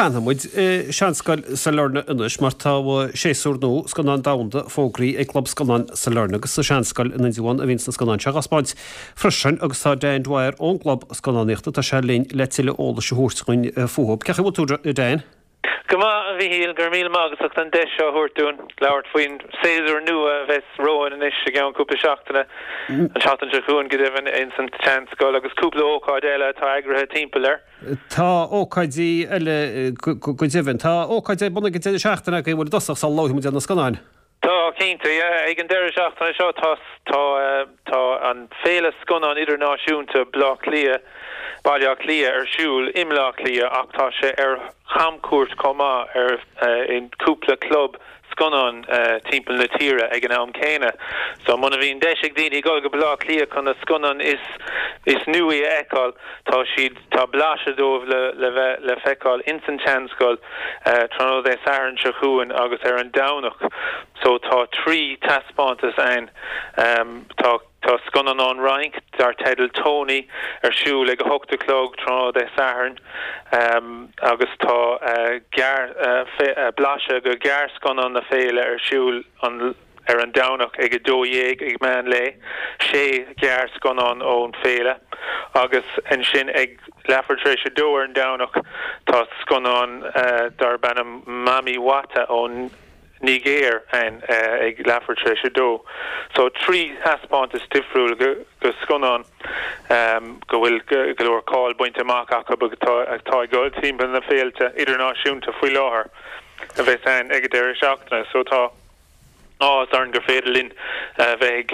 Fanfaidh muid i Seanscoil Sailearna anois mar tá séasúr nua Scannán Domhanda fógraithe ag Club Scannán Sailearna agus sa Seanscoil in Indreabhán a bhíonns na scannáin seo á dtaispeáint freisin agus tá Dan Dwyer ón gClub Scannánaíochta, tá sé linn le tuilleadh eolais a thabhairt dhúinn fúthu. Cén chaoi a bhfuil tú, Dan? Go maith, a Mhichíl, go raibh míle maith agat as an deis seo a thabhairt dúinn labhairt faoin séasúr nua a bheas romhainn anois i gceann cúpla seachtaine, an tseachtain seo chugainn go deimhin, ins an tSeanscoil agus cúpla ócáid eile atá eagraithe timpeall air. Tá ócáidí eile go deimhin. Tá ócáid ar bun ag an deireadh seachtaine agaibh, an bhfuil i dtosach sula labhróidh muid ar na scannáin? Tá, cinnte, yeah. Ag an deireadh seachtaine seo tá tá tá an Féile Scannán Idirnáisiúnta Bleá Cliath, Baile Átha Cliath ar siúl i mBleá Cliath ach tá sé ar chamchuairt chomh maith ar in cúpla club scannán timpeall na tíre ag an am céanna. So muna bhíonn deis ag daoine dul go Baile Átha Cliath chun na scannáin is is nuaí a fheiceáil, tá siad, tá blaiseadh dóibh le le bheith le feiceáil ins an tSeanscoil tráthnóna Dé Sathairn seo chugainn agus ar an Domhnach. So tá 3 taispeántas ann. Tá. Tá scannán ón Fhrainc dar teideal Tony ar siúl ag 8 a chlog tráthnóna Dé Sathairn agus tá blaiseadh de ghearrscannán na féile ar siúl ar an Domhnach ag 12 ag meán lae, sé ghearrscannán ón féile agus ansin ag leathuair tar éis a dó ar an Domhnach tá scannán darb ainm Mami Wata ón Nigéir ann ag leathuair tar éis a dó. So 3 thaispeántas difriúil de scannáin go bhfuil go leor cáil bainte amach acu agus atá ag dul timpeall na féilte idirnáisiúnta faoi láthair a bheas ann ag an deireadh seachtaine. So tá áthas orainn gur féidir linn bheith ag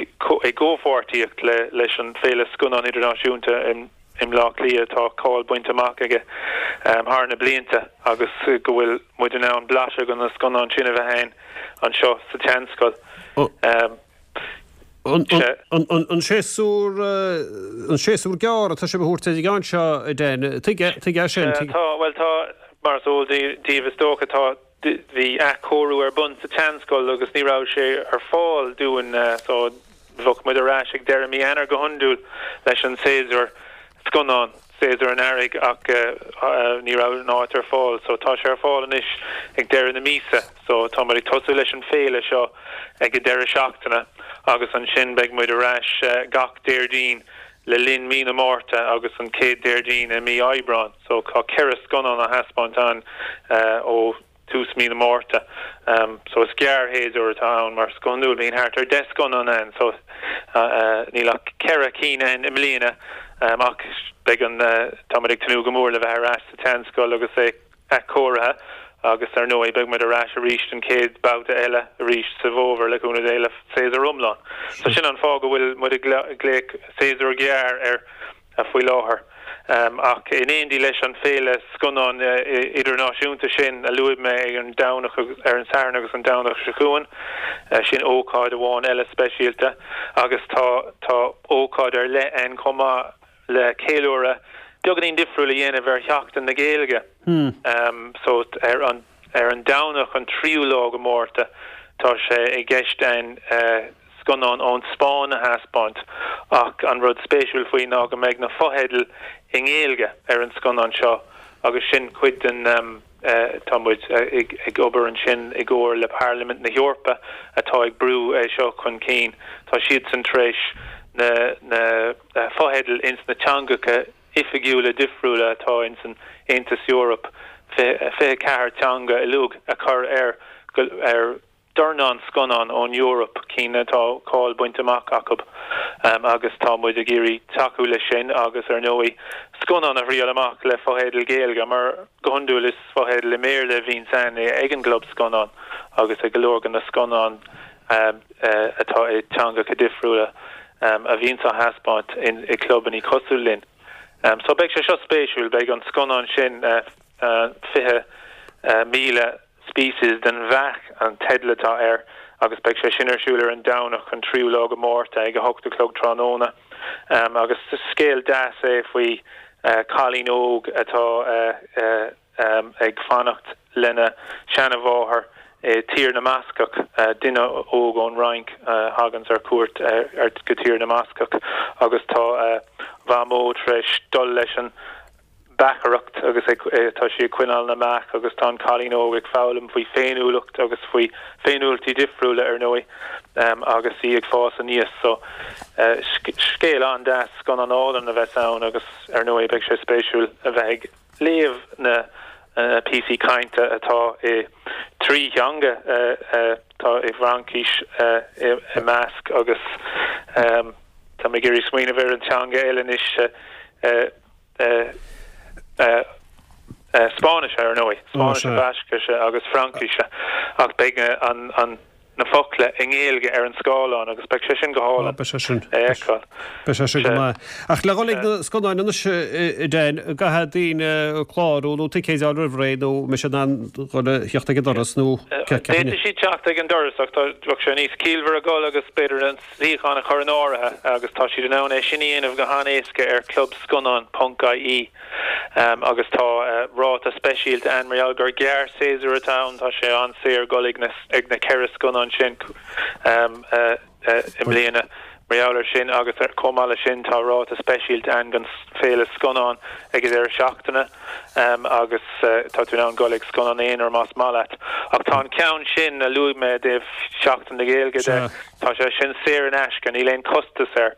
gcomhpháirtíocht leis an Féile Scannán Idirnáisiúnta i i mBleá Cliath atá cáil bainte amach aige thar na blianta agus go bhfuil muid in ann blaiseadh de na scannáin sin a bheith ann anseo sa tSeanscoil. An séasúr an séasúr gearr atá sibh a thabhairt ar an gceann seo, a Dan? Tuige tuige sin? Tá, bhuel tá, mar is eol daoibh is dócha, tá Bhí athchóiriú ar bun sa tSeanscoil agus ní raibh sé ar fáil dúinn so bheadh muid ar ais ag deireadh mí Eanáir go hiondúil leis an séasúr scannán, séasúr an earraigh ach ní raibh an áit ar fáil so tá sé ar fáil anois ag deireadh na míosa so tá muid ag tosú leis an féile seo ag an deireadh seachtaine agus ansin beidh muid ar ais gach Déardaoin le linn mí na Márta agus an chéad Déardaoin i mí Aibreáin. So tá 4 scannán á thaispeáint ann ó tús mí na Márta. So is gearrshéasúr atá ann mar go hiondúil bíonn thart ar 10 scannán ann so níl ach 4 cinn ann i mbliana ach beidh an, tá muid ag tnúth go mór le bheith ar ais sa tSeanscoil agus é athchóirithe agus ar ndóigh beidh muid ar ais arís an chéad babhta eile arís sa bhfómhar le cúnamh Dé le séasúr iomlán. So sin an fáth go bhfuil muid ag glaoch séasúr gearr air faoi láthair. Ach in éindí leis an féile scannán idirnáisiúnta sin a luaigh mé ag an Domhnach ar an Satharn agus an Domhnach seo chugainn, sin ócáid amháin eile speisialta agus tá tá ócáid ar leith ann chomh maith le ceiliúradh beagáinín difriúil a dhéanamh ar Sheachtain na Gaeilge. So ar an ar an Domhnach an tríú lá de Mhárta tá sé i gceist againn scannán ón Spáinn a thaispeáint ach an rud spéisiúil faoi ná go mbeidh na fotheidil i nGaeilge ar an scannán seo agus sin cuid den Tá muid ag obair ansin i gcomhar le Parlaimint na hEorpa atá ag brú é seo chun cinn. Tá siadsan tar éis na na fotheidil ins na teangacha oifigiúla difriúla atá ins an Aontas Eorpach, 24 teanga uilig, a chur ar ar dornán scannán ón Eoraip, cinn atá cáil bainte amach acu agus tá muid ag iarraidh tacú leis sin agus ar ndóigh scannán a thriail amach le fotheidil Ghaeilge mar go hiondúil is fotheidil i mBéarla a bhíonns ann ag an gclub scannán agus ag go leor de na scannáin atá i dteangacha difriúla a bhíonns á thaispeáint i gclubannaí cosúil linn. So beidh sé seo spéisiúil, beidh an scannán sin 20,000 Species den bheach an teideal atá air agus beidh sé sin ar siúl ar an Domhnach an tríú lá de Mhárta ag 8 a chlog tráthnóna. Agus scéal deas é faoi chailín óg atá ag fanacht lena seanamháthair i Tír na mBascach, duine óg ón Fhrainc a thaganns ar cuairt go Tír na mBascach agus tá a mhamó tar éis dul leis an. beachaireacht agus ag tá sí ag coinneáil na mbeach agus tá an cailín óg ag foghlaim faoi féiniúlacht agus faoi féiniúlachtaí difriúla ar ndóigh agus í ag fás aníos. So scéal an-deas, scannán álainn a bheas ann agus ar ndóigh beidh sé spéisiúil a bheith ag léamh na píosaí cainte atá i dtrí theanga, tá i bhFraincis i measc agus tá mé ag iarraidh smaoineamh ar an teanga eile anois. Spáinnise, ar ndóigh, Spáinnise, Bascaise agus Fraincise, ach beidh na focla i nGaeilge ar an scáileán agus beidh sé sin go hálainn a fheiceáil. Beidh sé sin go maith. Ach le dhul ag na scannáin anois, a Dan, an gcaithfidh daoine clárú nó ticéid a fháil roimh ré nó an mbeidh siad in ann dhul a theacht ag an doras nó D'fhéadfadh siad teacht ag an doras ach bheadh sé níos ciallmhaire dhul agus b'fhéidir an suíochán a chur in áirithe agus tá siad in ann é sin a dhéanamh go han-éasca ar clubscannán ponc ie agus tá ráta speisialta ann mar gheall gur gearr-séasúr atá ann, tá sé an-saor dul ag na 4 scannán sin i mbliana mar gheall ar sin agus chomh maith leis sin tá ráta speisialta ann don Féile Scannán ag an deireadh seachtaine. agus tá tú in ann dul ag scannán aonair más maith leat. Ach tá an ceann sin a luaigh mé i dtaobh Sheachtain na Gaeilge de, tá sé sin saor in aisce, níl aon chostas air.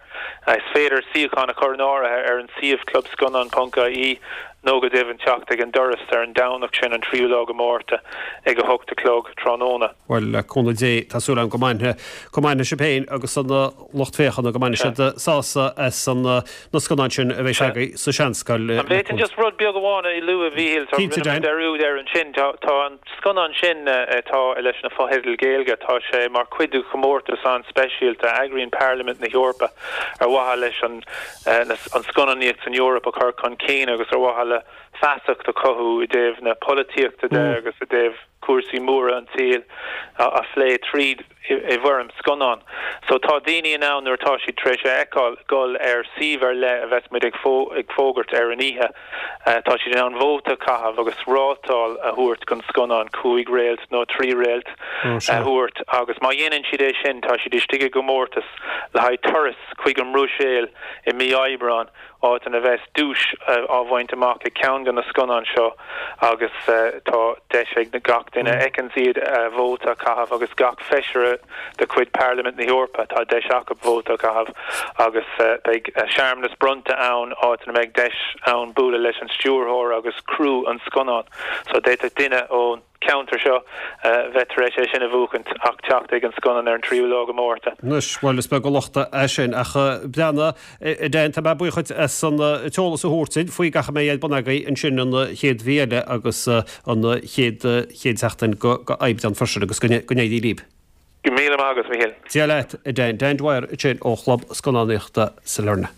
Is féidir suíochán a chur in áirithe ar an suíomh clubscannán ponc ie nó go deimhin teacht ag an doras ar an Domhnach sin, an tríú lá de Mhárta, ag 8 a chlog tráthnóna. Bhuel, le cúnamh Dé, tá súil agam go mbainfidh, go mbainfidh sibh féin agus an lucht féachana, go mbainfidh siad sásamh as an na scannáin sin a bheidh agaibh sa Seanscoil. An bhféadfainn just rud beag amháin a lua, a Mhíchíl? Tá, rinne mé dearúd air ansin. Tá, tá an scannán sin atá leis na fotheidil Gaeilge, tá sé mar chuid de chomórtas an-speisialta a eagraíonn Parlaimint na hEorpa ar mhaithe leis an, an scannánaíocht san Eoraip a chur chun cinn agus ar mhaithe le feasacht a chothú i dtaobh na polaitíochta de agus i dtaobh cúrsaí móra an tsaoil a phlé tríd i bhfoirm scannán. So tá daoine in ann nuair atá siad tar éis é a fheiceáil dul ar suíomh ar leith a bheas muid ag fógairt ar an oíche. Tá siad in ann vóta a chaitheamh agus rátáil a thabhairt don scannán, 5 réalt nó 3 réalt a thabhairt agus má dhéanann siad é sin tá siad istigh i gcomórtas le haghaidh turas chuig an mBruiséil i mí Aibreáin. áit ina bheas duais á bhaint amach ag ceann de na scannáin seo agus tá deis ag gach duine a fheiceanns iad vóta a chaitheamh agus gach feisire de chuid Parlaimint na hEorpa, tá deis acu vóta a chaitheamh agus beidh searmanas bronnta ann áit ina mbeidh deis ann bualadh leis an stiúrthóir agus criú an scannáin. So d'fhéadfadh duine ón. ceantar seo bheith tar éis é sin a bhuachaint ach teacht ag an scannán ar an tríú lá de Mhárta. Anois, bhuel, is beag an locht é sin, ach breathnaigh, a Dan, tá mé buíoch dhuit as an t-eolas a thabhairt duinn faoi gach a mbeidh ar bun agaibh ansin an chéad mhí eile agus an chéad chéad seachtain go Aibreán freisin agus go n-éirí libh. Go raibh míle maith agat, a Mhíchíl. Dia leat, a Dan. Dan Dwyer ansin ó Chlub Scannánaíochta Sailearna.